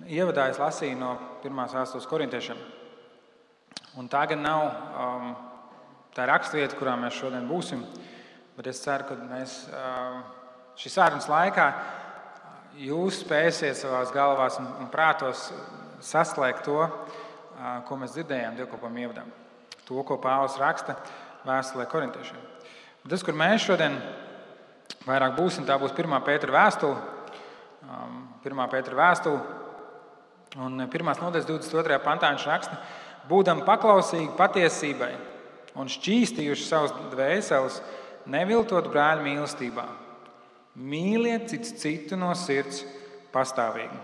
ievadā es lasīju no 1. vēstules korintiešiem. Un tā gan nav tā rakstvieta, kurā mēs šodien būsim, bet es ceru, ka mēs šīs sarunas laikā jūs spēsiet savās galvās un prātos saslēgt to, ko mēs dzirdējām dievkalpojuma ievadā. To, ko Pāvils raksta vēstulē korintiešiem. Tas, kur mēs šodien vairāk būsim, tā būs 1. Pētera vēstule. 1. Pētera vēstule. Un 1. nodaļas 22. pantā viņš raksta: būdam paklausīgi patiesībai un šķīstījuši savus dvēseles, neviltot brāļu mīlestībā. Mīliet cits citu no sirds pastāvīgi.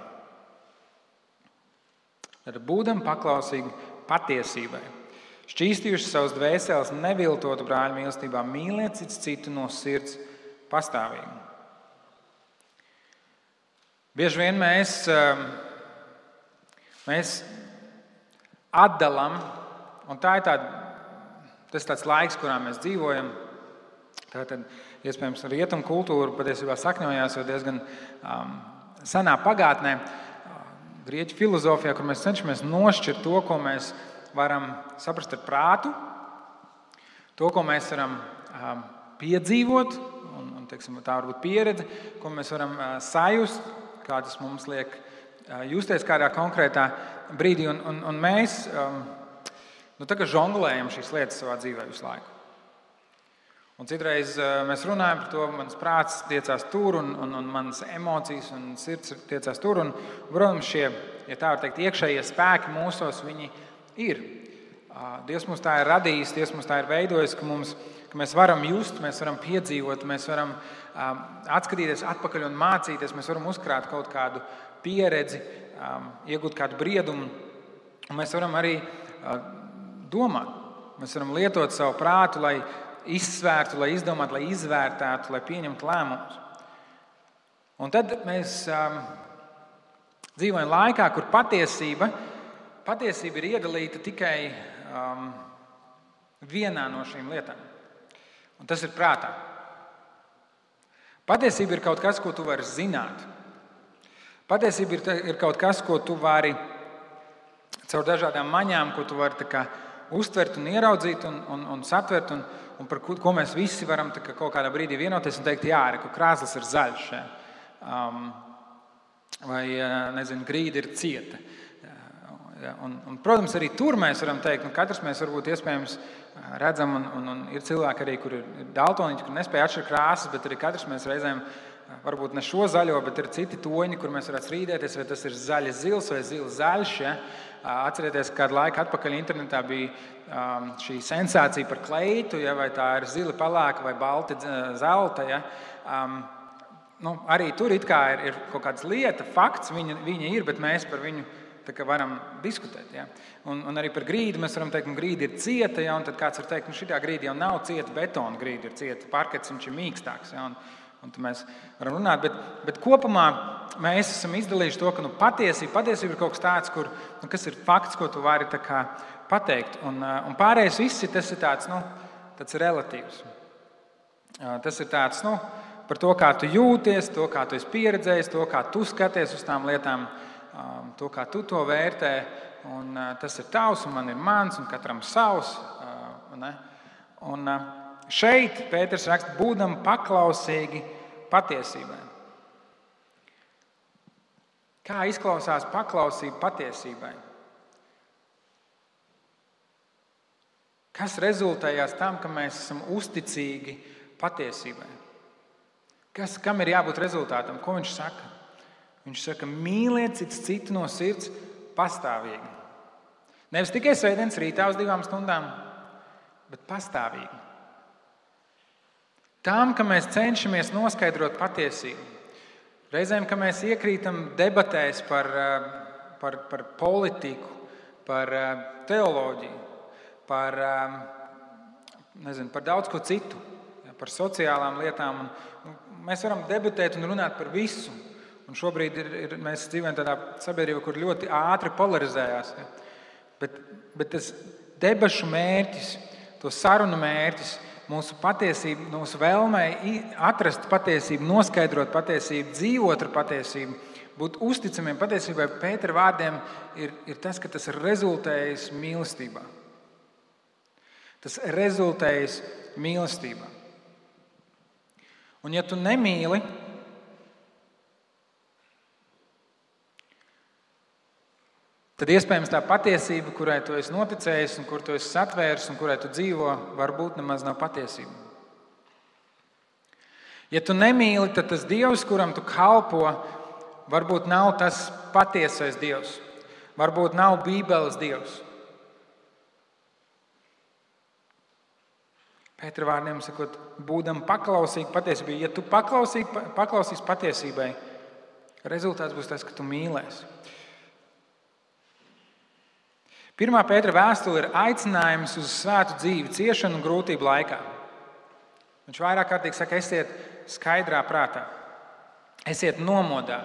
Tad būdam paklausīgi patiesībai. Šķīstījuši savus dvēseles, neviltotu brāļu mīlestībā, mīliet cits citu no sirds pastāvīgi. Bieži vien mēs atdalam, un tas ir tāds laiks, kurā mēs dzīvojam. Tātad, iespējams, rietumu kultūra patiesībā sakņojās jau diezgan senā pagātnē, grieķu filozofijā, kur mēs cenšamies nošķirt to, ko mēs varam saprast ar prātu, to, ko mēs varam piedzīvot, un teiksim, tā var būt pieredze, ko mēs varam sajust, kā tas mums liek justies kādā konkrētā brīdī. Un mēs tā kā žonglējam šīs lietas savā dzīvē visu laiku. Un citreiz mēs runājam par to, mans prāts tiecās tur, un manas emocijas un sirds tiecās tur. Un, protams, šie, ja tā var teikt, iekšējie spēki mūsos, viņi ir. Dievs mums tā ir radījis, Dievs mums tā ir veidojis, ka mēs varam just, mēs varam piedzīvot, mēs varam atskatīties atpakaļ un mācīties, mēs varam uzkrāt kaut kādu pieredzi, iegūt kādu briedumu, un mēs varam arī domāt. Mēs varam lietot savu prātu, lai izsvērtu, lai izdomātu, lai izvērtētu, lai pieņemtu lēmumus. Un tad mēs dzīvojam laikā, kur patiesība ir iedalīta tikai vienā no šīm lietām. Un tas ir prātā. Patiesība ir kaut kas, ko tu vari zināt. Patiesība ir kaut kas, ko tu vari caur dažādām maņām, ko tu vari tā kā uztvert un ieraudzīt un satvert, un par ko mēs visi varam kaut kādā brīdī vienoties un teikt, jā, krāslis ir zaļš, vai, nezinu, grīda ir cieta. Un, protams, arī tur mēs varam teikt, katrs mēs varbūt iespējams redzam, un ir cilvēki arī, kur ir daltoniķi, kur nespēja atšķirt krāsas, bet arī katrs mēs reizēm, varbūt ne šo zaļo, bet ir citi toņi, kur mēs varētu strīdēties, vai tas ir zaļa zils vai zils zaļš. Ja? Atcerieties, kādu laiku atpakaļ internetā bija šī sensācija par kleitu, ja? Vai tā ir zili palāka vai balti zelta. Ja? Arī tur it kā ir kaut kādas lieta, fakts, viņa ir, bet mēs par viņu varam diskutēt. Ja? Un arī par grīdu mēs varam teikt, ka grīda ir cieta, ja? Un tad kāds var teikt, ka šitā grīda jau nav cieta, betona grīda ir cieta, parkets viņš ir mīkstāks. Ja? Un tad mēs varam runāt, bet kopumā mēs esam izdalījuši to, ka patiesība ir kaut kas tāds, kas ir fakts, ko tu vari pateikt. Un pārējais viss tas ir tāds relatīvs. Tas ir tāds par to, kā tu jūties, to, kā tu esi pieredzējis, to, kā tu skaties uz tām lietām, to, kā tu to vērtē. Un tas ir tavs, un man ir mans, un katram savs. Un šeit Pēters raksta, būdam paklausīgi patiesībai. Kā izklausās paklausība patiesībai? Kas rezultējās tam, ka mēs esam uzticīgi patiesībai? Kam ir jābūt rezultātam? Ko viņš saka? Viņš saka, mīliet citu no sirds pastāvīgi. Nevis tikai svētdienas rītā uz 2 stundām, bet pastāvīgi. Tām, ka mēs cenšamies noskaidrot patiesību. Reizēm, ka mēs iekrītam debatēs par politiku, par teoloģiju, par daudz ko citu, par sociālām lietām. Mēs varam debatēt un runāt par visu. Un šobrīd mēs dzīvojam tādā sabiedrībā, kur ļoti ātri polarizējās. Bet tas debašu mērķis, to sarunu mērķis, mūsu patiesība, mūsu vēlmei atrast patiesību, noskaidrot patiesību, dzīvot ar patiesību, būt uzticamiem patiesībai Pētera vārdiem ir tas, ka tas ir rezultējis mīlestībā. Tas rezultējis mīlestībā. Un ja tu nemīli, tad iespējams tā patiesība, kurai tu esi noticējis un kur tu esi satvēris un kurai tu dzīvo, varbūt nemaz nav patiesība. Ja tu nemīli, tad tas Dievs, kuram tu kalpo, varbūt nav tas patiesais Dievs. Varbūt nav Bībeles Dievs. Pētera vārdiem sakot, būdam paklausīgi patiesībai. Ja tu paklausīsi patiesībai, rezultāts būs tas, ka tu mīlēsi. 1. Pētera vēstule ir aicinājums uz svētu dzīvi, ciešanu un grūtību laikā. Viņš vairāk kārtīgi saka, esiet skaidrā prātā, esiet nomodā,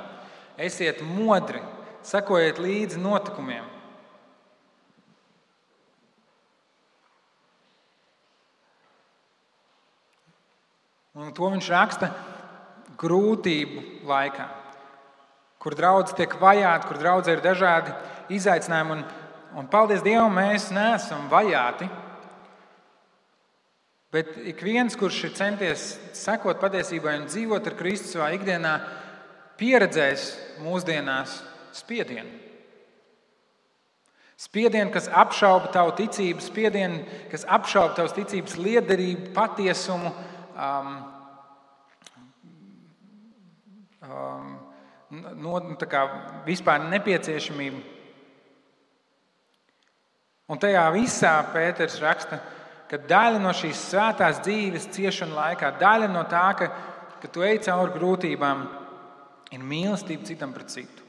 esiet modri, sekojiet līdzi notikumiem. Un to viņš raksta grūtību laikā, kur draudze tiek vajāta, kur draudze ir dažādi izaicinājumi. Un paldies Dievam, mēs neesam vajāti, bet ik viens, kurš ir centies sekot patiesībai un dzīvot ar Kristu savā ikdienā, pieredzēs mūsdienās spiedienu. Spiedienu, kas apšauba tavu ticību, spiedienu, kas apšauba tavas ticības liederību, patiesumu, vispār nepieciešamību. Un tajā visā Pēters raksta, ka daļa no šīs svētās dzīves ciešanu laikā, daļa no tā, ka tu ej cauri grūtībām, ir mīlestība citam pret citu.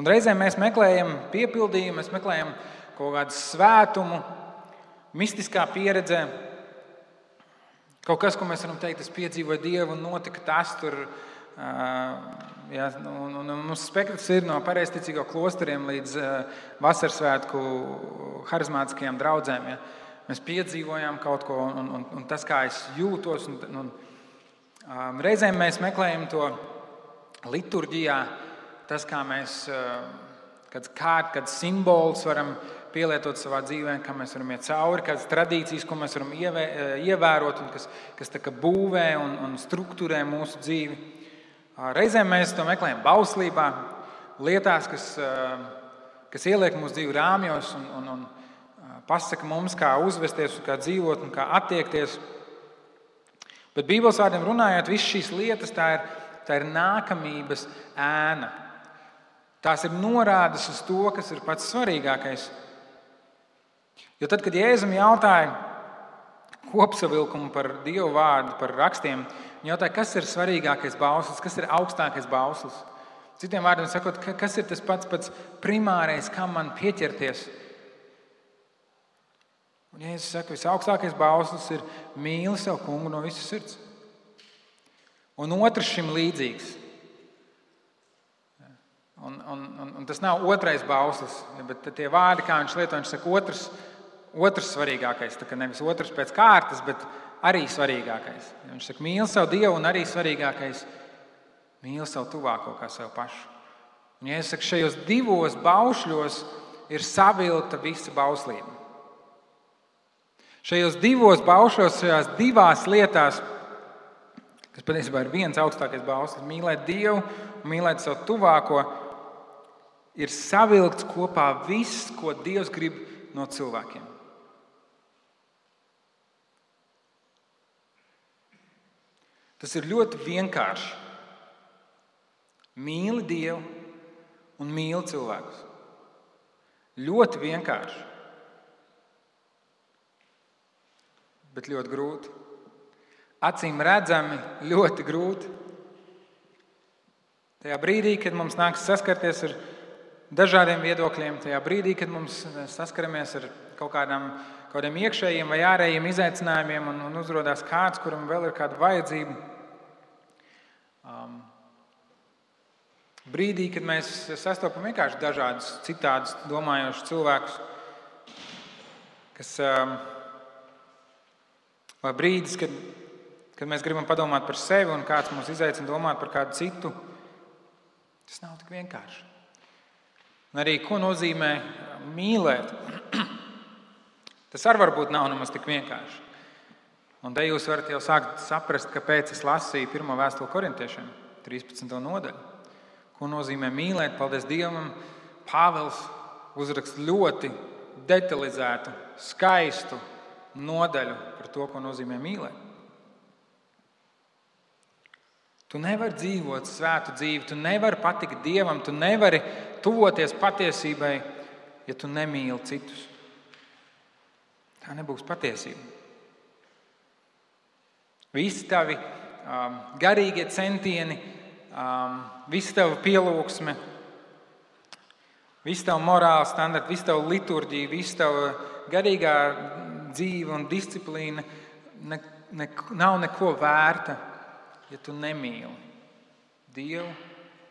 Un reizēm mēs meklējam piepildījumu, mēs meklējam kaut kādu svētumu, mistiskā pieredzē. Kaut kas, ko mēs varam teikt, es piedzīvoju Dievu un notika tas tur. Mums spektrs ir no pareizticīgo klosteriem līdz vasarsvētku harizmātiskajām draudzēm. Ja. Mēs piedzīvojām kaut ko un tas, kā es jūtos. Reizēm mēs meklējam to liturģijā, tas, kā mēs kāds simbols varam pielietot savā dzīvē, kā mēs varam iet cauri, kādas tradīcijas, ko mēs varam ievērot un kas tā kā būvē un strukturē mūsu dzīvi. Reizēm mēs to meklējam bauslībā, lietās, kas ieliek mūsu dzīvi rāmjos un pasaka mums, kā uzvesties, kā dzīvot un kā attiekties. Bet Bībeles vārdiem runājot, visas šīs lietas tā ir nākamības ēna. Tās ir norādes uz to, kas ir pats svarīgākais. Jo tad, kad Jēzum jautāja kopsavilkumu par Dievu vārdu, par rakstiem, viņš jautāja, kas ir svarīgākais bauslis, kas ir augstākais bauslis. Citiem vārdiem sakot, kas ir tas pats primārais, kam man pieķerties. Un Jēzus saka, visaugstākais bauslis ir mīli savu kungu no visas sirds. Un otrs šim līdzīgs. Un tas nav otrais bauslis, bet tie vārdi, kā viņš lieto, viņš saka otrs svarīgākais. Tā kā nevis otrs pēc kārtas, bet arī svarīgākais. Viņš saka, mīli savu Dievu un arī svarīgākais, mīli savu tuvāko kā sev pašu. Un Jēzus saka, šajos divos baušļos ir savilkta visa bauslība. Šajos divos baušļos, šajās divās lietās, kas patiesībā ir viens augstākais bauslis, mīlēt Dievu un mīlēt savu tuvāko, ir savilkts kopā viss, ko Dievs grib no cilvēkiem. Tas ir ļoti vienkārši. Mīli Dievu un mīli cilvēkus. Ļoti vienkārši. Bet ļoti grūti. Acīm redzami ļoti grūti. Tajā brīdī, kad mums nāks saskarties ar dažādiem viedokļiem, tajā brīdī, kad mums saskaramies ar kaut kādiem iekšējiem vai ārējiem izaicinājumiem un uzrodās kāds, kuram vēl ir kāda vajadzība. Brīdī, kad mēs sastopam vienkārši dažādus citādus domājošus cilvēkus, vai brīdis, kad kad mēs gribam padomāt par sevi un kāds mūs izaicina domāt par kādu citu, tas nav tik vienkārši. Un arī, ko nozīmē mīlēt, tas arī varbūt nav nemaz tik vienkārši. Un te jūs varat jau sākt saprast, kāpēc es lasīju 1. vēstuli korintiešiem, 13. nodaļu. Ko nozīmē mīlēt? Paldies Dievam, Pāvils uzraksta ļoti detalizētu, skaistu nodaļu par to, ko nozīmē mīlēt. Tu nevari dzīvot svētu dzīvi, tu nevari patikt Dievam, tu nevari tuvoties patiesībai, ja tu nemīli citus. Tā nebūs patiesība. Visi tavi garīgie centieni, visa tava pielūgsme, visa tava morāla standarta, visa tava liturģija, visa tava garīgā dzīve un disciplīna nav neko vērta, ja tu nemīli Dievu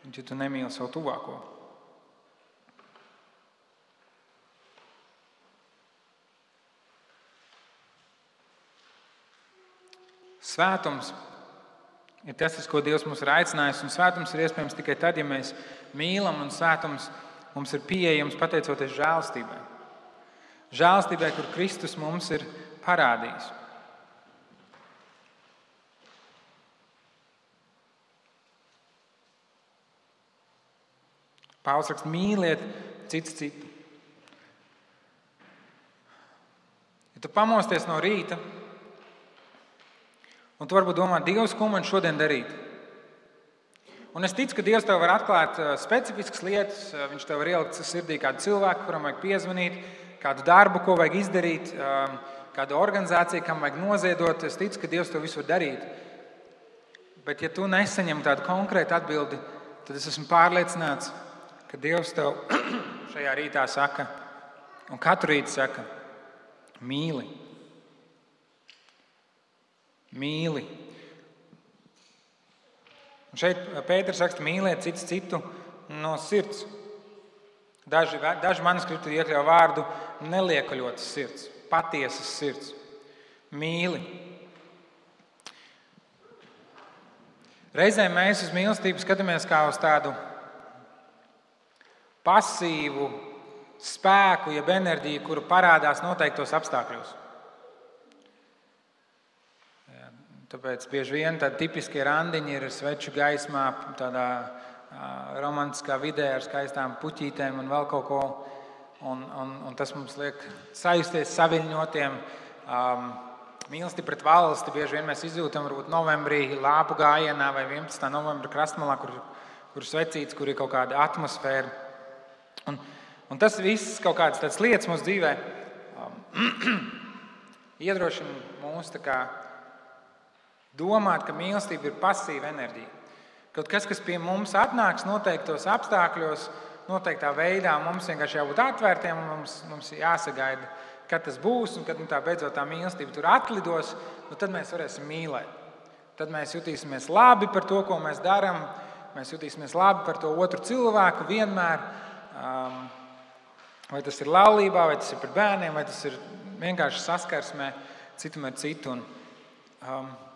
un ja tu nemīli savu tuvāko. Svētums ir tas, uz ko Dievs mūs ir aicinājis, un svētums ir iespējams tikai tad, ja mēs mīlam, un svētums mums ir pieejams pateicoties žēlastībai. Žēlastībai, kur Kristus mums ir parādījis. Pāvils raksta, mīliet cits citu. Ja tu pamosties no rīta, un tu varbūt domā, Dievs, ko man šodien darīt? Un es ticu, ka Dievs tev var atklāt specifiskas lietas, viņš tev var ielikt sirdī kādu cilvēku, kuram vajag piezvanīt, kādu darbu, ko vajag izdarīt, kādu organizāciju, kam vajag noziedot. Es ticu, ka Dievs to visu var darīt. Bet ja tu nesaņem tādu konkrētu atbildi, tad es esmu pārliecināts, ka Dievs tev šajā rītā saka, un katru rītu saka, mīli. Mīli. Un šeit Pēters raksta, mīliet cits citu no sirds. Daži manuskripti iekļauj vārdu neliekaļotas sirds, patiesas sirds. Mīli. Reizēm mēs uz mīlestību skatāmies kā uz tādu pasīvu spēku, jeb enerģiju, kuru parādās noteiktos apstākļos. Tāpēc bieži vien tādi tipiskie randiņi ir sveču gaismā, tādā romantiskā vidē ar skaistām puķītēm un vēl kaut ko. Un tas mums liek sajusties saviļņotiem. Mīlestība pret valsti bieži vien mēs izjūtam varbūt novembrī lāpu gājienā vai 11. novembra krastmalā, kur svecīts, kur ir kaut kāda atmosfēra. Un tas viss kaut kādas tādas lietas mūsu dzīvē iedrošina mūs tā kā domāt, ka mīlestība ir pasīva enerģija. Kaut kas pie mums atnāks noteiktos apstākļos, noteiktā veidā, mums vienkārši jābūt atvērtiem, mums jāsagaida, kad tas būs, un kad tā beidzot tā mīlestība tur atlidos, tad mēs varēsim mīlēt. Tad mēs jutīsimies labi par to, ko mēs darām, mēs jutīsimies labi par to otru cilvēku vienmēr. Vai tas ir laulībā, vai tas ir par bērniem, vai tas ir vienkārši saskarsmē citam ar citu.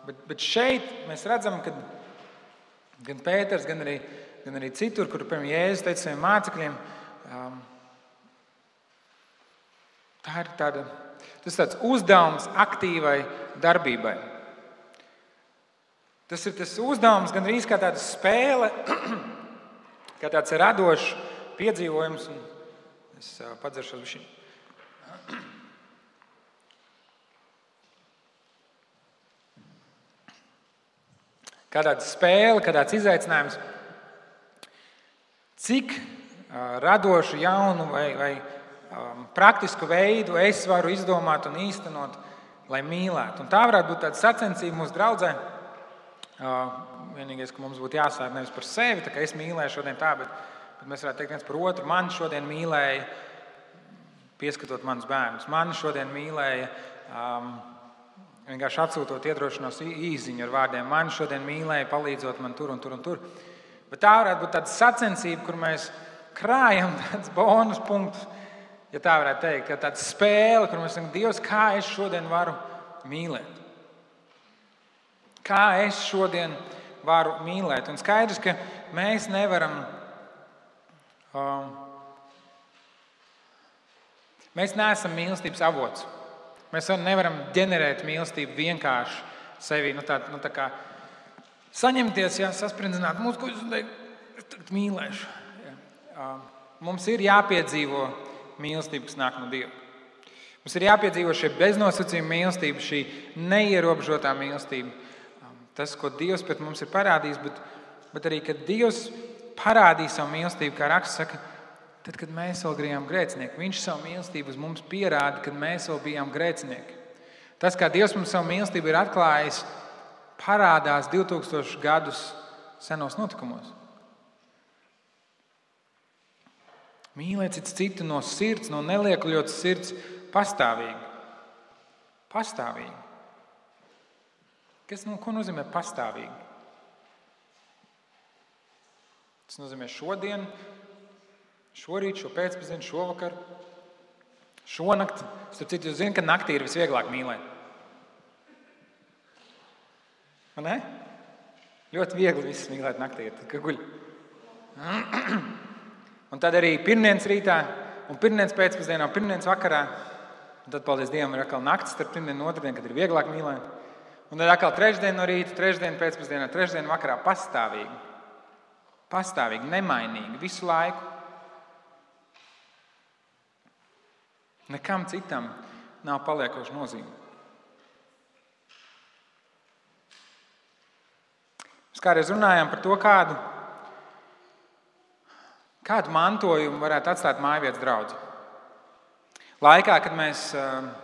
Bet šeit mēs redzam, ka gan Pēters, gan arī citur, kur piemēram Jēzus teica saviem mācekļiem, tas ir tāds uzdevums aktīvai darbībai. Tas ir tas uzdevums gan arī kā tāda spēle, kā tāds radošs piedzīvojums. Es padzeršos bišķiņ. Kā tāda spēle, kā tāds izaicinājums. Cik radošu, jaunu vai praktisku veidu es varu izdomāt un īstenot, lai mīlētu. Un tā varētu būt tāda sacensība mūsu draudzē. Vienīgais, ka mums būtu jāsāk nevis par sevi, tā kā es mīlēju šodien tā, bet mēs varētu teikt viens par otru. Mani šodien mīlēja, pieskatot manus bērnus. Mani šodien mīlēja, vienkārši atsūtot iedrošinos īziņu ar vārdiem. Mani šodien mīlēja, palīdzot man tur un tur un tur. Bet tā varētu būt tāda sacensība, kur mēs krājam tādus bonus punktus, ja tā varētu teikt, ka tāda spēle, kur mēs sakam, Dievs, kā es šodien varu mīlēt. Kā es šodien varu mīlēt? Un skaidrs, ka mēs nevaram, mēs neesam mīlestības avots. Mēs nevaram ģenerēt mīlestību vienkārši sevi, tā kā saņemties, sasprindzināt mūsu, ko es tagad mīlēšu. Mums ir jāpiedzīvo mīlestība, kas nāk no Dieva. Mums ir jāpiedzīvo šī beznosacījuma mīlestība, šī neierobežotā mīlestība. Tas, ko Dievs pret mums ir parādījis, bet arī, kad Dievs parādīja savu mīlestību, kā raksts saka, tad, kad mēs vēl bijām grēcinieki, Viņš savu mīlestību uz mums pierāda, kad mēs vēl bijām grēcinieki. Tas, kā Dievs mums savu mīlestību ir atklājis, parādās 2000 gadus senos notikumos. Mīlēt citu no sirds, no neliekuļotas sirds, pastāvīgi. Pastāvīgi. Ko nozīmē pastāvīgi? Tas nozīmē šodien, šorīt, šo pēcpusdienu, šovakar, šonakt. Starp citu, jūs zināt, ka naktī ir visvieglāk mīlēt. Vai ne? Ļoti viegli visus mīlēt naktī, tad, kad guļ. Un tad arī pirmdienas rītā, un pirmdienas pēcpusdienā, un pirmdienas vakarā. Un tad, paldies Dievam, ir atkal naktis starp pirmdienu un otrdienu, kad ir vieglāk mīlēt. Un tad atkal trešdien no rīta, trešdien pēcpusdienā, trešdien vakarā pastāvīgi. Pastāvīgi, nemainīgi, visu laiku. Nekam citam nav paliekoša nozīme. Mēs kādreiz runājām par to, kādu mantojumu varētu atstāt mājvietas draudze. Laikā, kad mēs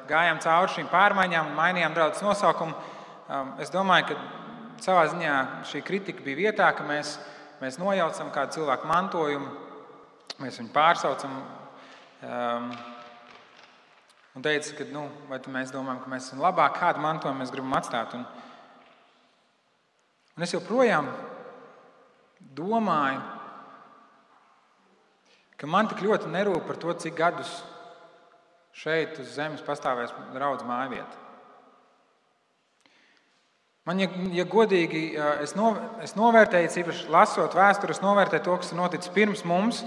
gājām cauri šīm pārmaiņām un mainījām draudzes nosaukumu, es domāju, ka savā ziņā šī kritika bija vietā, ka mēs nojaucam kādu cilvēku mantojumu, mēs viņu pārsaucam un teica, ka vai mēs domājam, ka mēs esam labāk, kādu mantojumu mēs gribam atstāt. Un es joprojām domāju, ka man tik ļoti nerūp par to, cik gadus šeit uz zemes pastāvēs draudzes mājvieta. Man, ja godīgi, es novērtēju, īpaši lasot vēsturi, es novērtēju to, kas ir noticis pirms mums,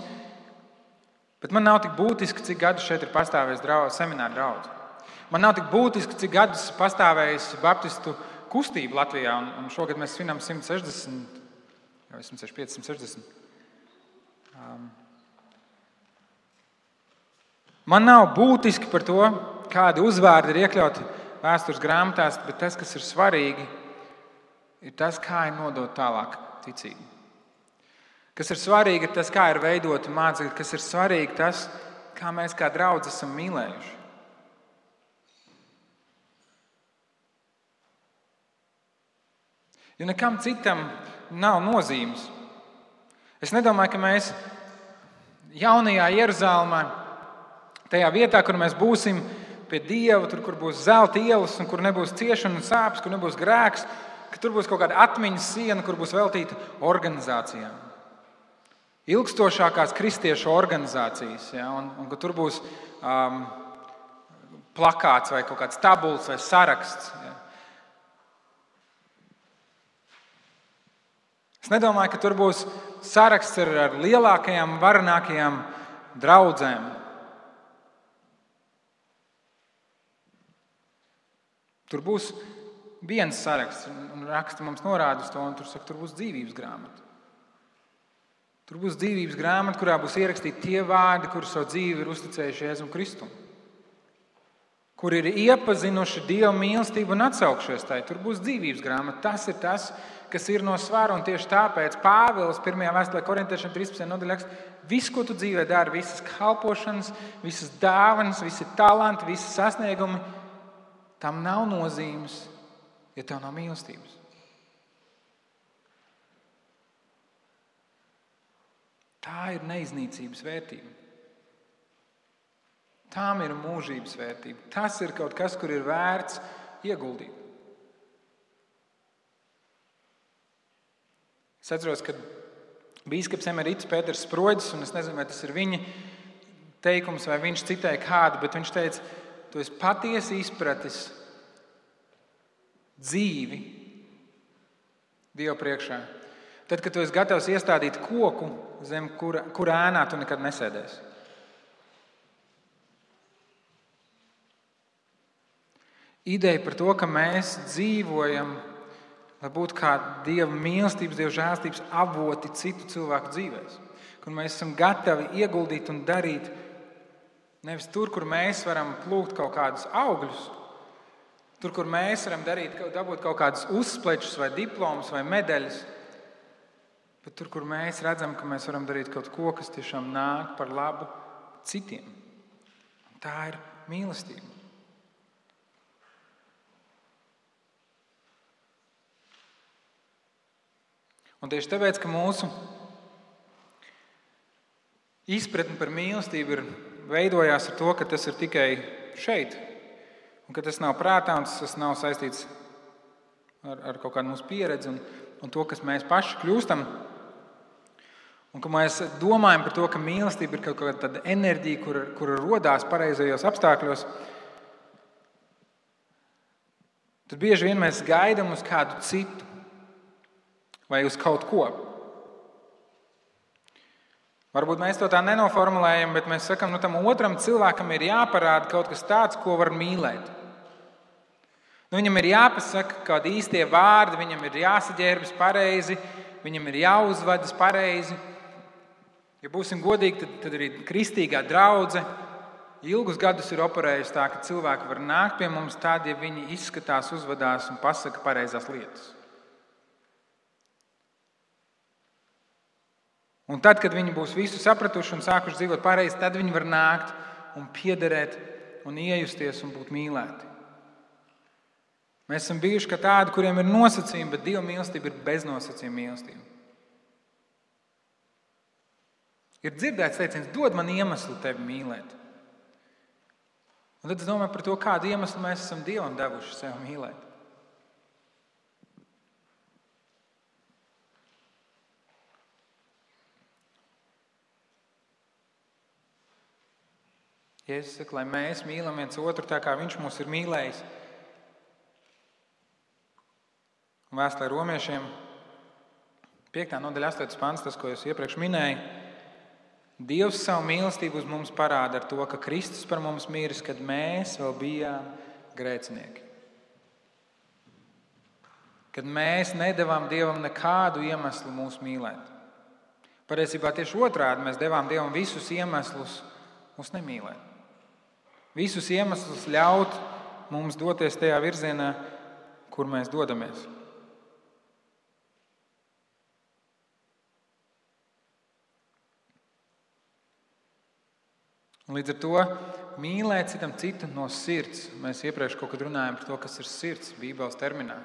bet man nav tik būtiski, cik gadus šeit ir pastāvējis semināra draudze. Man nav tik būtiski, cik gadus pastāvējis baptistu kustība Latvijā, un šogad mēs svinam 160, jau 165, 160. Man nav būtiski par to, kādi uzvārdi ir iekļauti vēstures grāmatās, bet tas, kas ir svarīgi, ir tas, kā ir nodot tālāk ticību. Kas ir svarīgi, ir tas, kā ir veidota mācekļi, kas ir svarīgi, tas, kā mēs kā draudzi esam mīlējuši. Jo nekam citam nav nozīmes. Es nedomāju, ka mēs jaunajā Jeruzalemē, tajā vietā, kur mēs būsim pie Dieva, tur, kur būs zelta ielas un kur nebūs ciešana un sāpes, kur nebūs grēks, ka tur būs kaut kāda atmiņas siena, kur būs veltīta organizācijām. Ilgstošākās kristiešu organizācijas, un ka tur būs plakāts vai kaut kāds tabuls vai saraksts. Es nedomāju, ka tur būs saraksts ar lielākajām, varenākajām draudzēm. Tur būs viens saraksts, un raksti mums norāda uz to, un tur saka, tur būs dzīvības grāmata. Tur būs dzīvības grāmata, kurā būs ierakstīti tie vārdi, kuri savu dzīvi ir uzticējuši Jēzum Kristum, kur ir iepazinuši Dieva mīlestību un atsaukšies tai. Tur būs dzīvības grāmata. Tas ir tas, kas ir no svara, un tieši tāpēc Pāvils 1. vēstulē Korintiešiem 13. nodaļā raksta, viss, ko tu dzīvē dari, visas kalpošanas, visas dāvanas, visi talanti, visi sasniegumi, tam nav nozīmes, ja tev nav mīlestības. Tā ir neiznīcības vērtība. Tām ir mūžības vērtība. Tas ir kaut kas, kur ir vērts ieguldīt. Es atceros, kad bīskaps emerits Pēters Sproģis, un es nezinu, vai tas ir viņa teikums, vai viņš citēja kādu, bet viņš teica, tu esi patiesi izpratis dzīvi Dieva priekšā. Tad, kad tu esi gatavs iestādīt koku, zem kura ēnā tu nekad nesēdēsi. Ideja par to, ka mēs dzīvojam, lai būtu kā Dieva mīlestības, Dieva žēlstības avoti citu cilvēku dzīvēs. Kur mēs esam gatavi ieguldīt un darīt nevis tur, kur mēs varam plūkt kaut kādus augļus, tur, kur mēs varam dabūt kaut kādus uzsplečus vai diplomus vai medaļas, bet tur, kur mēs redzam, ka mēs varam darīt kaut ko, kas tiešām nāk par labu citiem. Un tā ir mīlestība. Un tieši tāpēc, ka mūsu izpratne par mīlestību veidojās ar to, ka tas ir tikai šeit, un ka tas nav prātā, un tas nav saistīts ar kaut kādu mūsu pieredzi un to, kas mēs paši kļūstam, un ka mēs domājam par to, ka mīlestība ir kaut kāda tāda enerģija, kura rodās pareizajos apstākļos, tad bieži vien mēs gaidām uz kādu citu vai uz kaut ko. Varbūt mēs to tā nenoformulējam, bet mēs sakam, tam otram cilvēkam ir jāparāda kaut kas tāds, ko var mīlēt. Viņam ir jāpasaka kādi īstie vārdi, viņam ir jāsaģērbjas pareizi, viņam ir jāuzvedas pareizi. Ja būsim godīgi, tad arī kristīgā draudze ilgus gadus ir operējusi tā, ka cilvēki var nākt pie mums tādi, ja viņi izskatās, uzvedās un pasaka pareizās lietas. Un tad, kad viņi būs visu sapratuši un sākuši dzīvot pareizi, tad viņi var nākt un piederēt un iejusties un būt mīlēti. Mēs esam bijuši kā tādi, kuriem ir nosacījumi, bet Dieva mīlestība ir beznosacījuma mīlestība. Ir dzirdēts teiciens, dod man iemeslu tevi mīlēt. Un tad es domāju par to, kādu iemeslu mēs esam Dievam devuši sev mīlēt. Jēzus saka, lai mēs mīlam viens otru tā, kā viņš mūs ir mīlējis. Un vēstulē Romiešiem 5. nodaļa 8. pants, tas, ko es iepriekš minēju. Dievs savu mīlestību uz mums parāda ar to, ka Kristus par mums miris, kad mēs vēl bijām grēcinieki. Kad mēs nedevām Dievam nekādu iemeslu mūs mīlēt. Patiesībā tieši otrādi mēs devām Dievam visus iemeslus mūs nemīlēt. Visus iemeslus ļaut mums doties tajā virzienā, kur mēs dodamies. Līdz ar to mīlēt citu no sirds. Mēs iepriekš kaut kad runājām par to, kas ir sirds Bībeles terminā.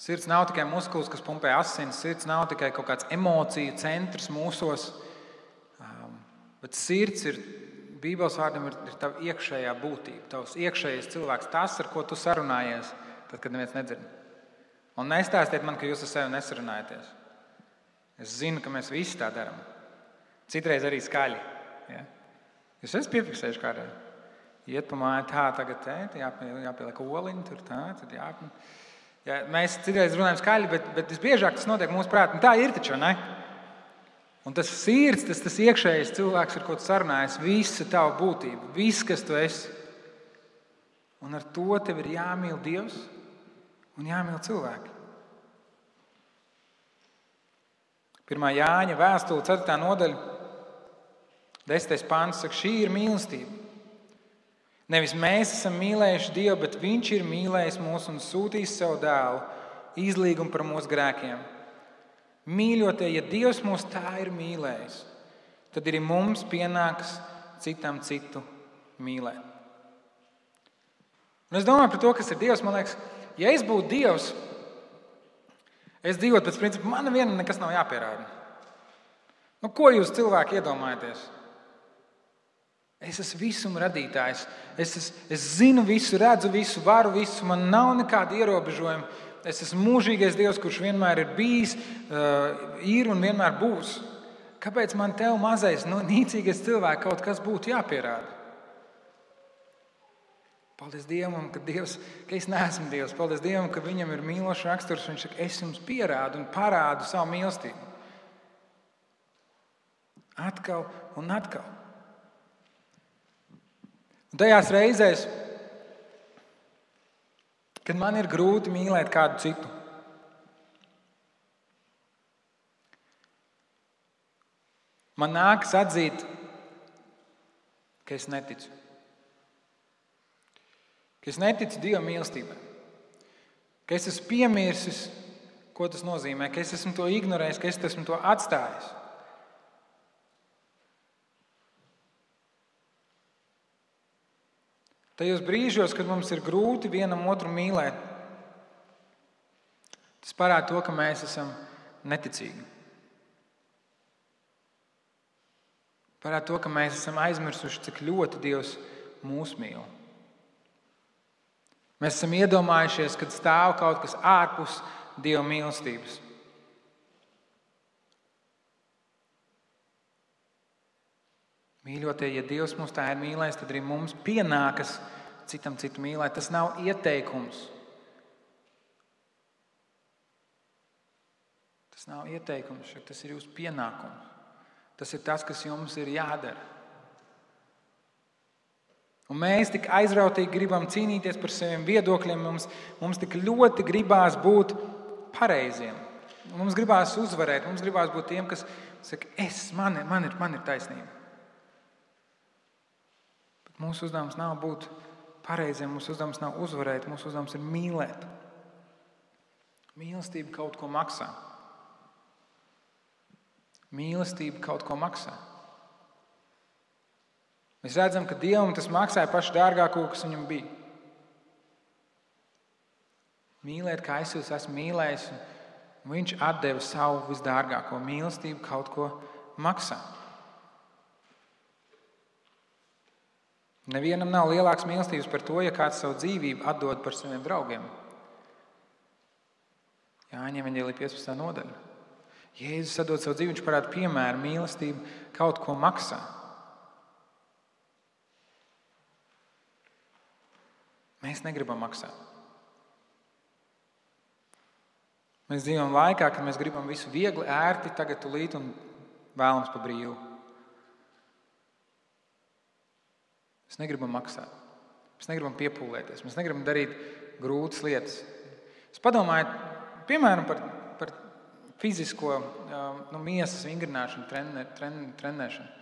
Sirds nav tikai muskulis, kas pumpē asinis, sirds nav tikai kaut kāds emociju centrs mūsos, bet sirds ir, Bībeles vārdam ir tava iekšējā būtība, tavs iekšējais cilvēks, tas, ar ko tu sarunājies, tad, kad neviens nedzird. Un nestāstiet man, ka jūs ar sevi nesarunājaties. Es zinu, ka mēs visi tā darām. Citreiz arī skaļi. Ja? Jūs esat piefiksējuši kādreiz. Iet pa māju tā, tagad jāpieliek oliņi, tur tā, tad jāpam. Ja, mēs citreiz runājam skaļi, bet visbiežāk tas notiek mūsu prātā. Tā ir taču, ne? Un tas sirds, tas iekšējais cilvēks, ar ko tu sarunājies, visa tava būtība, viss, kas tu esi. Un ar to tev ir jāmīl Dievs un jāmīl cilvēki. 1. Jāņa vēstule, 4. nodaļa, 10. pāns saka, šī ir mīlestība. Nevis mēs esam mīlējuši Dievu, bet Viņš ir mīlējis mūs un sūtījis savu dēlu izlīgumu par mūsu grēkiem. Mīļotie, ja Dievs mūs tā ir mīlējis, tad arī mums pienāks citam citu mīlēt. Un es domāju par to, kas ir Dievs. Man liekas, ja es būtu Dievs, es dzīvotu pēc principa, man vienam nekas nav jāpierāda. Ko jūs cilvēki iedomājaties? Es esmu visuma radītājs. Es zinu visu, redzu visu, varu visu, man nav nekāda ierobežojuma. Es esmu mūžīgais Dievs, kurš vienmēr ir bijis, ir un vienmēr būs. Kāpēc man tev mazais, nīcīgais cilvēks kaut kas būtu jāpierāda? Paldies Dievam, ka es neesmu Dievs. Paldies Dievam, ka viņam ir mīlošs raksturs. Viņš saka, es jums pierādu un parādu savu mīlestību. Atkal un atkal. Un tajās reizēs, kad man ir grūti mīlēt kādu citu, man nākas atzīt, ka es neticu. Ka es neticu Dieva mīlestībai. Ka es esmu piemirsis, ko tas nozīmē. Ka es esmu to ignorējis, ka es esmu to atstājis. Tajos brīžos, kad mums ir grūti vienam otru mīlēt, tas parāda to, ka mēs esam neticīgi. Parāda to, ka mēs esam aizmirsuši, cik ļoti Dievs mūs mīl. Mēs esam iedomājušies, kad stāv kaut kas ārpus Dieva mīlestības. Mīļotie, ja Dievs mūs tā ir mīlējis, tad arī mums pienākas citam citu mīlēt. Tas nav ieteikums. Tas nav ieteikums, tas ir jūsu pienākums. Tas ir tas, kas jums ir jādara. Un mēs tik aizrautīgi gribam cīnīties par saviem viedokļiem. Mums tik ļoti gribās būt pareiziem. Mums gribās uzvarēt. Mums gribās būt tiem, kas saka, man ir taisnība. Bet mūsu uzdevums nav būt pareiziem. Mūsu uzdevums nav uzvarēt. Mūsu uzdevums ir mīlēt. Mīlestība kaut ko maksā. Mīlestība kaut ko maksā. Mēs redzam, ka Dievam tas maksāja pašu dārgāko, kas viņam bija. Mīlēt, kā es jūs esmu mīlējis, un viņš atdeva savu visdārgāko. Mīlestību kaut ko maksā. Nevienam nav lielāks mīlestības par to, ja kāds savu dzīvību atdod par saviem draugiem. Jāņem Evaņģēlija 15. nodaļa. Jēzus atdod savu dzīvi, viņš parāda piemēru, mīlestību kaut ko maksā. Mēs negribam maksāt. Mēs dzīvojam laikā, kad mēs gribam visu viegli, ērti, tagad tulīt un vēlams pa brīvu. Mēs negribam maksāt. Mēs negribam piepūlēties. Mēs negribam darīt grūtas lietas. Es padomāju, piemēram, par fizisko miesas vingrināšanu, trenēšanu.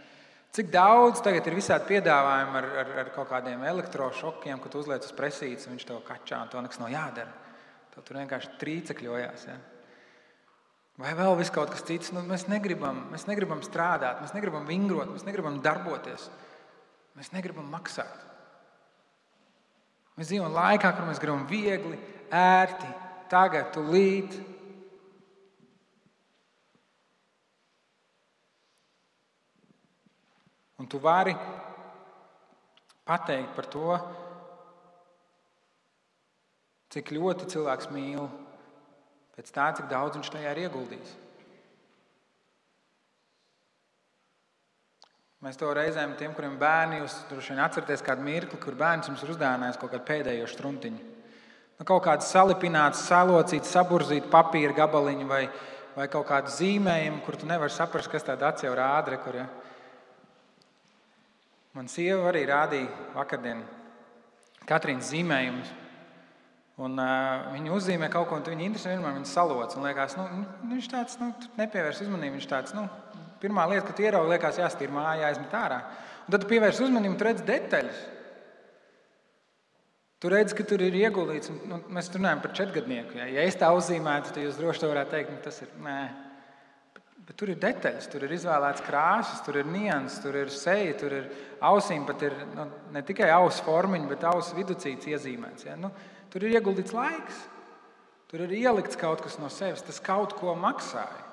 Cik daudz tagad ir visādi piedāvājumi ar kaut kādiem elektrošokiem, ko tu uzliec uz presītes, un viņš tev kačā, un to nekas nav jādara. Tev tur vienkārši trīcekļojās. Ja? Vai vēl viss kaut kas cits. Mēs negribam strādāt, mēs negribam vingrot, mēs negribam darboties. Mēs negribam maksāt. Mēs dzīvojam laikā, kur mēs gribam viegli, ērti, tagad, tulīt. Un tu vari pateikt par to, cik ļoti cilvēks mīl, pēc tā, cik daudz viņš tajā ir ieguldījis. Mēs to reizēm tiem, kuriem bērni, jūs droši vien atceraties kādu mirkli, kur bērns jums ir uzdāvinājis kaut kādu pēdējo štruntiņu. Kaut kādu salipinātu, salocītu, saburzītu papīra gabaliņu vai kaut kādu zīmējumu, kur tu nevari saprast, kas tāda acs jau rāda. Ja? Man sieva arī rādīja vakardien Katrīnas zīmējumus. Un viņa uzzīmē kaut ko, un viņa interesē vienmēr viņa saloc. Un liekas, viņš tāds, nepievērs uzmanību. Viņš tāds, pirmā lieta, ka tu ieraugi, liekas, jāstīr māja, jāizmet ārā. Un tad tu pievērs uzmanību, tu redz detaļas. Tu redz, ka tur ir ieguldīts. Mēs runājam par 4-gadnieku. Ja es tā uzzīmētu, tad jūs droši to varētu teikt, tas ir nē. Bet tur ir detaļas, tur ir izvēlēts krāsas, tur ir nianses, tur ir seja, tur ir ausīm, pat ir ne tikai ausu formiņa, bet ausu viducīts iezīmēts. Ja? Tur ir ieguldīts laiks, tur ir ielikts kaut kas no sevis, tas kaut ko maksāja.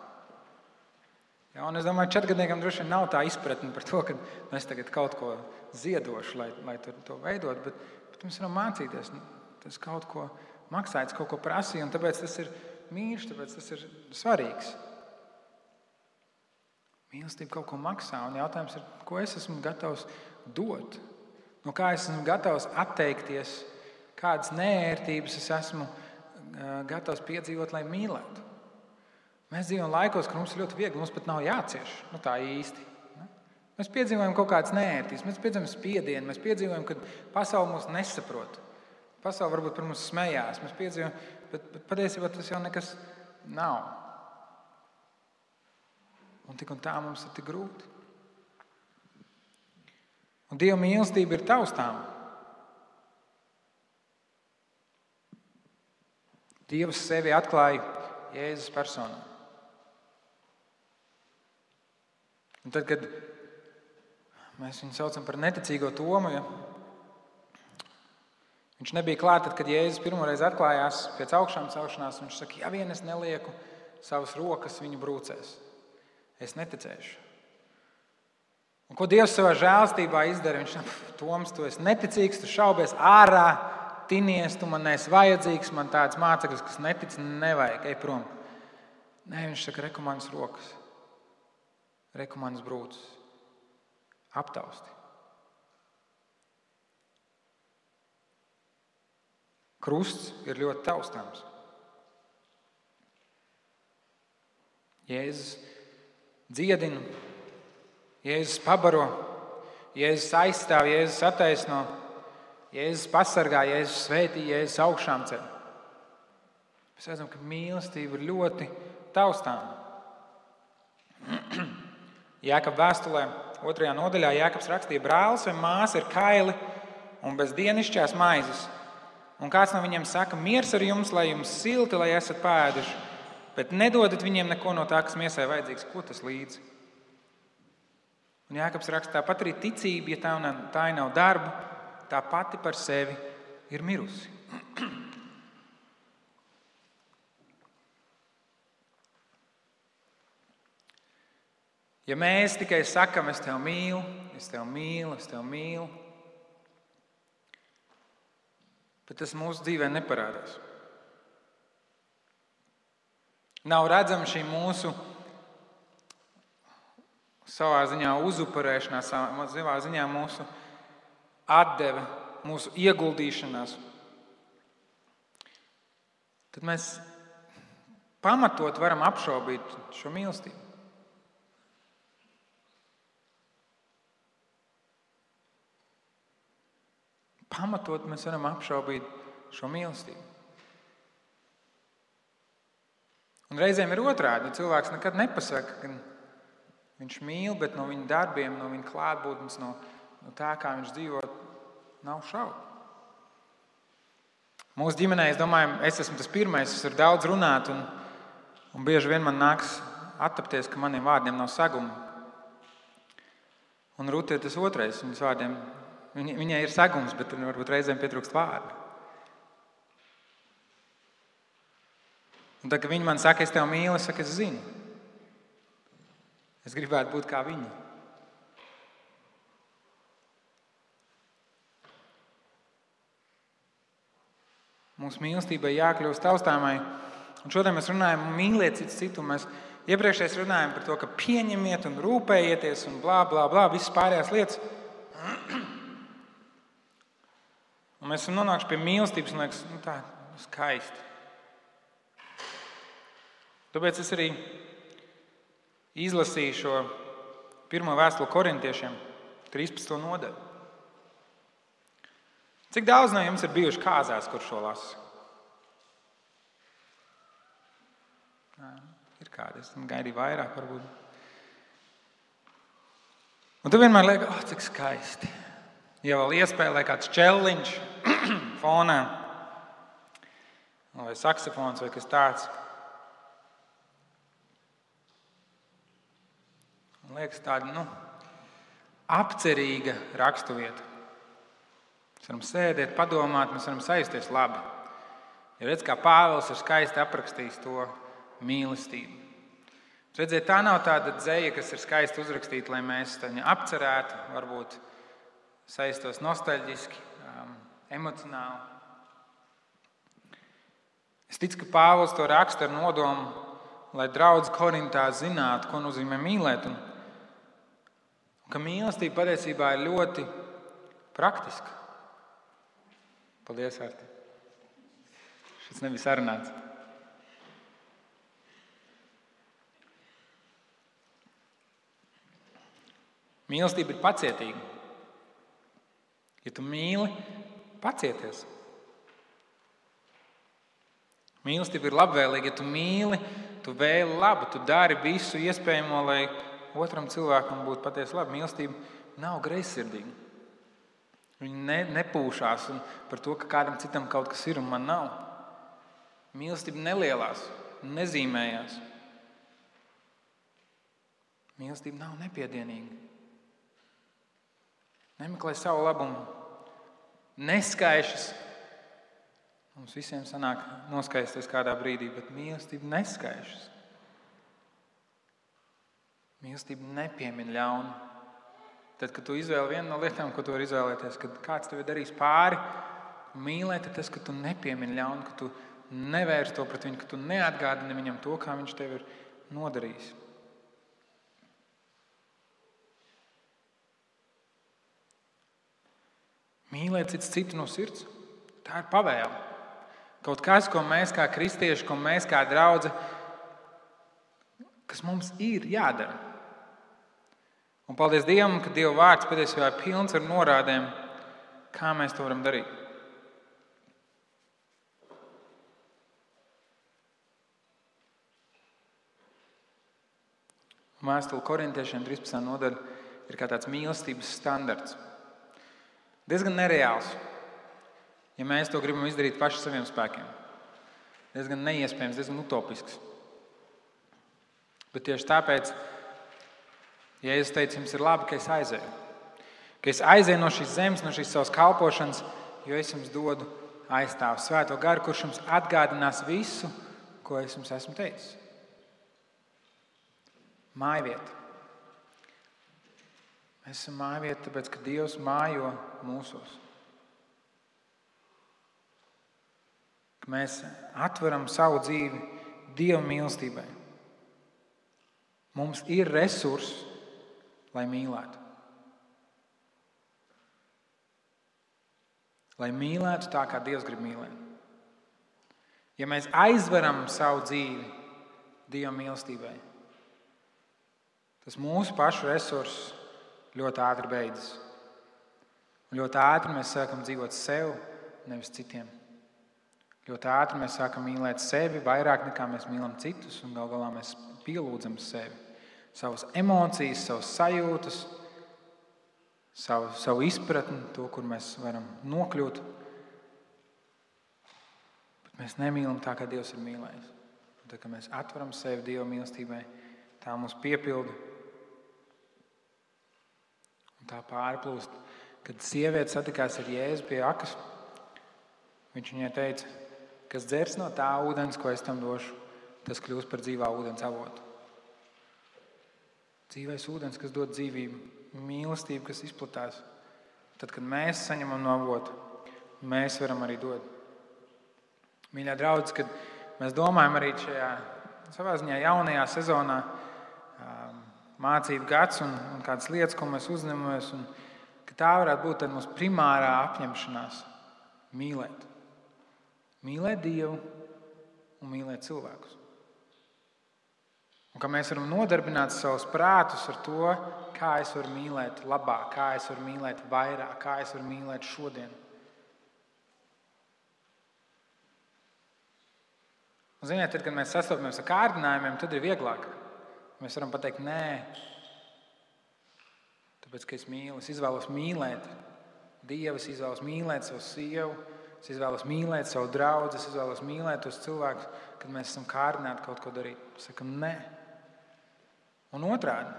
Ja? Un es domāju, 4-gadniekam droši vien nav tā izpratne par to, ka es tagad kaut ko ziedošu, lai to veidot, bet mēs varam mācīties, tas kaut ko maksāja, tas kaut ko prasīja, un tāpēc tas ir mīļš, tāpēc tas ir svarīgs. Mīlestība kaut ko maksā, un jautājums ir, ko es esmu gatavs dot? no kā es esmu gatavs atteikties, kādas neērtības es esmu gatavs piedzīvot, lai mīlētu. Mēs dzīvojam laikos, kur mums ir ļoti viegli, mums pat nav jācieš, tā īsti. Mēs piedzīvojam kaut kādas neērtības, mēs piedzīvojam spiedienu, mēs piedzīvojam, ka pasaule mūs nesaprot. Pasaule varbūt par mums smējās, mēs piedzīvojam, bet patiesībā tas jau nekas nav. Un tik un tā mums ir tik grūti. Un Dieva mīlestība ir taustāma. Dievs sevi atklāja Jēzus personā. Un tad, kad mēs viņu saucam par neticīgo Tomu, ja viņš nebija klāt, tad, kad Jēzus pirmoreiz atklājās pēc augšām celšanās, viņš saka, ja vien es nelieku savas rokas viņu brūcēs, es neticēšu. Un ko Dievs savā žēlstībā izdara? Viņš saka, Toms, tu esi neticīgs, tu šaubies ārā, tinies, tu man neesi vajadzīgs, man tāds māceklis, kas netic, nevajag, ej prom. Nē, viņš saka, reku manas rokas, reku manas brūces, aptausti. Krusts ir ļoti taustāms. Jēzus dziedina, Jēzus pabaro, Jēzus aizstāv, Jēzus attaisno, Jēzus pasargā, Jēzus svētī, Jēzus augšām ceļ. Mēs redzam, ka mīlestība ir ļoti taustāma. Jākaba vēstulē 2. nodaļā Jākabs rakstīja, brālis vai māsa ir kaili un bez dienišķās maizes. Un kāds no viņiem saka, miers ar jums, lai jums silti, lai esat pāēduši, bet nedodat viņiem neko no tā, kas miesai vajadzīgs. Ko tas līdzi? Un Jākabs raksta, tāpat arī ticība, ja tā nav darba, tā pati par sevi ir mirusi. Ja mēs tikai sakam, es tevi mīlu, es tevi mīlu, es tevi mīlu, bet tas mūsu dzīvē neparādās. Nav redzama šī mūsu savā ziņā uzupurēšanās, savā ziņā mūsu atdeve, mūsu ieguldīšanās. Tad mēs pamatot varam apšaubīt šo mīlestību. Pamatot mēs varam apšaubīt šo mīlestību. Un reizēm ir otrādi. Cilvēks nekad nepasaka, ka viņš mīl, bet no viņa darbiem, no viņa klātbūtnes, no tā, kā viņš dzīvo, nav šaubu. Mūsu ģimenē, es domāju, es esmu tas pirmais, es varu daudz runāt, un bieži vien man nāks attapties, ka maniem vārdiem nav saguma. Un Rūta ir tas otrais, viņas vārdiem. Viņai ir sagums, bet varbūt reizēm pietrūkst vārdu. Un tad, kad viņi man saka, es tevi mīlu, es saku, es zinu. Es gribētu būt kā viņi. Mūsu mīlestībai jākļūst taustāmai. Un šodien mēs runājam, mīliet cits citu. Mēs iepriekšējais runājam par to, ka pieņemiet un rūpējieties un blā, blā, blā, visas pārējās lietas. Un mēs esam nonākuši pie mīlestības un liekas, tā skaisti. Tāpēc es arī izlasīju šo 1. vēstuli Korintiešiem, 13. nodaļu. Cik daudz no jums ir bijuši kāzās, kur šo lasu? Ir kādi, es gaidīju vairāk varbūt. Un tu vienmēr liekas, cik skaisti. Ja vēl iespēlē kāds čelliņš fonā, vai saksofons, vai kas tāds. Man liekas tāda, apcerīga raksturvieta. Mēs varam sēdēt, padomāt, mēs varam sajusties labi. Ja redz, kā Pāvils ir skaisti aprakstījis to mīlestību. Redziet, tā nav tāda dzeja, kas ir skaisti uzrakstīta, lai mēs viņu apcerētu, varbūt saistos nostalģiski, emocionāli. Es ticu, ka Pāvils to raksta ar nodomu, lai draudz Korintā zinātu, ko nozīmē mīlēt. Un ka mīlestība patiesībā ir ļoti praktiska. Paldies, Arti. Šis nebija sarunāts. Mīlestība ir pacietīga. Ja tu mīli, pacieties. Mīlestība ir labvēlīga. Ja tu mīli, tu vēli labu, tu dari visu iespējamo, lai otram cilvēkam būtu patiesi labi. Mīlestība nav greizsirdīga. Viņa nepūšās par to, ka kādam citam kaut kas ir un man nav. Mīlestība nelielās, nezīmējās. Mīlestība nav nepiedienīga. Nemeklē savu labumu. Neskaišas. Mums visiem sanāk noskaisties kādā brīdī, bet mīlestība neskaišas. Mīlestība nepiemin ļaunu. Tad, kad tu izvēli vienu no lietām, ko tu vari izvēlēties, kad kāds tev ir darījis pāri, mīlēt ir tas, ka tu nepiemini ļaunu, ka tu nevērsi to pret viņu, ka tu neatgādini viņam to, kā viņš tev ir nodarījis. Mīlēt cits citu no sirds, tā ir pavēle. Kaut kas, ko mēs kā kristieši, ko mēs kā draudze, kas mums ir jādara. Un paldies Dievam, ka Dieva vārds patiesībā ir pilns ar norādēm, kā mēs to varam darīt. Vēstule Korintiešiem 13. nodaļa ir kā tāds mīlestības standarts. Diezgan nereāls, ja mēs to gribam izdarīt paši saviem spēkiem. Diezgan neiespējams, diezgan utopisks. Bet tieši tāpēc, ja es teicu, jums ir labi, ka es aizēju. Ka es aizēju no šīs zemes, no šīs savas kalpošanas, jo es jums dodu aizstāvu Svēto garu, kurš jums atgādinās visu, ko es jums esmu teicis. Mājvieta. Mēs esam mājvieta, tāpēc, ka Dievs mājo mūsos. Ka mēs atveram savu dzīvi Dieva mīlestībai. Mums ir resursi, lai mīlētu. Lai mīlētu tā, kā Dievs grib mīlēt. Ja mēs aizveram savu dzīvi Dieva mīlestībai, tas mūsu pašu resursus ļoti ātri beidzas. Un ļoti ātri mēs sākam dzīvot sev, nevis citiem. Ļoti ātri mēs sākam mīlēt sevi vairāk nekā mēs mīlam citus, un gal galā mēs pielūdzam sevi. Savas emocijas, savas sajūtas, savu izpratni, to, kur mēs varam nokļūt. Bet mēs nemīlam tā, kā Dievs ir mīlējis. Un tad, kad mēs atveram sevi Dieva mīlestībai, tā mūs piepilda. Tā pārplūst, kad sieviete satikās ar Jēzu pie akas. Viņš viņai teica, kas dzers no tā ūdens, ko es tam došu, tas kļūs par dzīvā ūdens avotu. Dzīvais ūdens, kas dod dzīvību, mīlestību, kas izplatās. Tad, kad mēs saņemam no avotu, mēs varam arī dot. Mīļā draudz, kad mēs domājam arī šajā savā ziņā jaunajā sezonā, mācību gads un kādas lietas, ko mēs uzņemamies, un ka tā varētu būt tad mūsu primārā apņemšanās mīlēt. Mīlēt Dievu un mīlēt cilvēkus. Un ka mēs varam nodarbināt savus prātus ar to, kā es varu mīlēt labāk, kā es varu mīlēt vairāk, kā es varu mīlēt šodien. Un ziniet, tad, kad mēs sastopamies ar kārdinājumiem, tad ir vieglāk. Mēs varam pateikt, nē, tāpēc, ka es mīlu, es izvēlos mīlēt Dievu, es izvēlos mīlēt savu sievu, es izvēlos mīlēt savu draugu, es izvēlos mīlēt tos cilvēkus, kad mēs esam kārdināti kaut ko darīt. Sakam, nē. Un otrādi,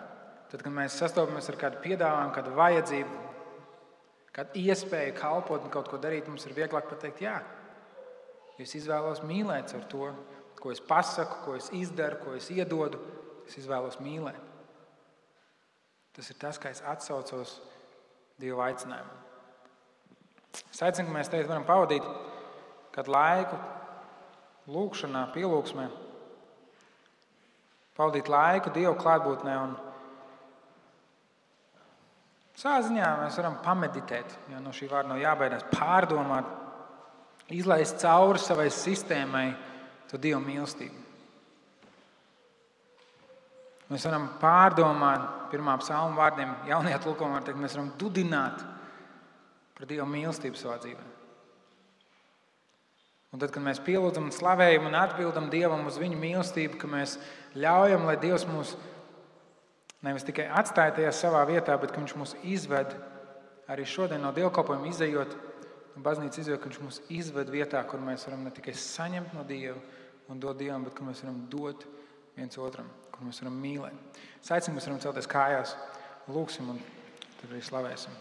tad, kad mēs sastopamies ar kādu piedāvājumu, kādu vajadzību, kādu iespēju kalpot un kaut ko darīt, mums ir vieglāk pateikt, jā. Es izvēlos mīlēt ar to, ko es pasaku, ko es izdaru, ko es iedodu. Es izvēlos mīlēt. Tas ir tas, kā es atsaucos Dieva aicinājumu. Es aicinu, ka mēs tagad varam pavadīt kādu laiku lūgšanā, pielūgsmē. Pavadīt laiku Dieva klātbūtnē un Savā ziņā mēs varam pameditēt, jo no šī vārda nav jābaidās, pārdomāt, izlaist cauri savai sistēmai to Dieva mīlestību. Mēs varam pārdomāt, pirmā psalma vārdiem, jaunajā tulkojumā var teikt, mēs varam dudināt par Dieva mīlestību savā dzīvē. Un tad, kad mēs pielūdzam un slavējam un atbildam Dievam uz viņu mīlestību, ka mēs ļaujam, lai Dievs mūs nevis tikai atstāja tajā savā vietā, bet ka Viņš mūs izved arī šodien no dievkalpojuma izejot, no baznīcas izejot, ka Viņš mūs izved vietā, kur mēs varam ne tikai saņemt no Dieva un dot Dievam, bet kur mēs varam dot viens otram, kur mēs varam mīlēt. Es aicinu, mēs varam celties kājās, lūgsim un tad arī slavēsim.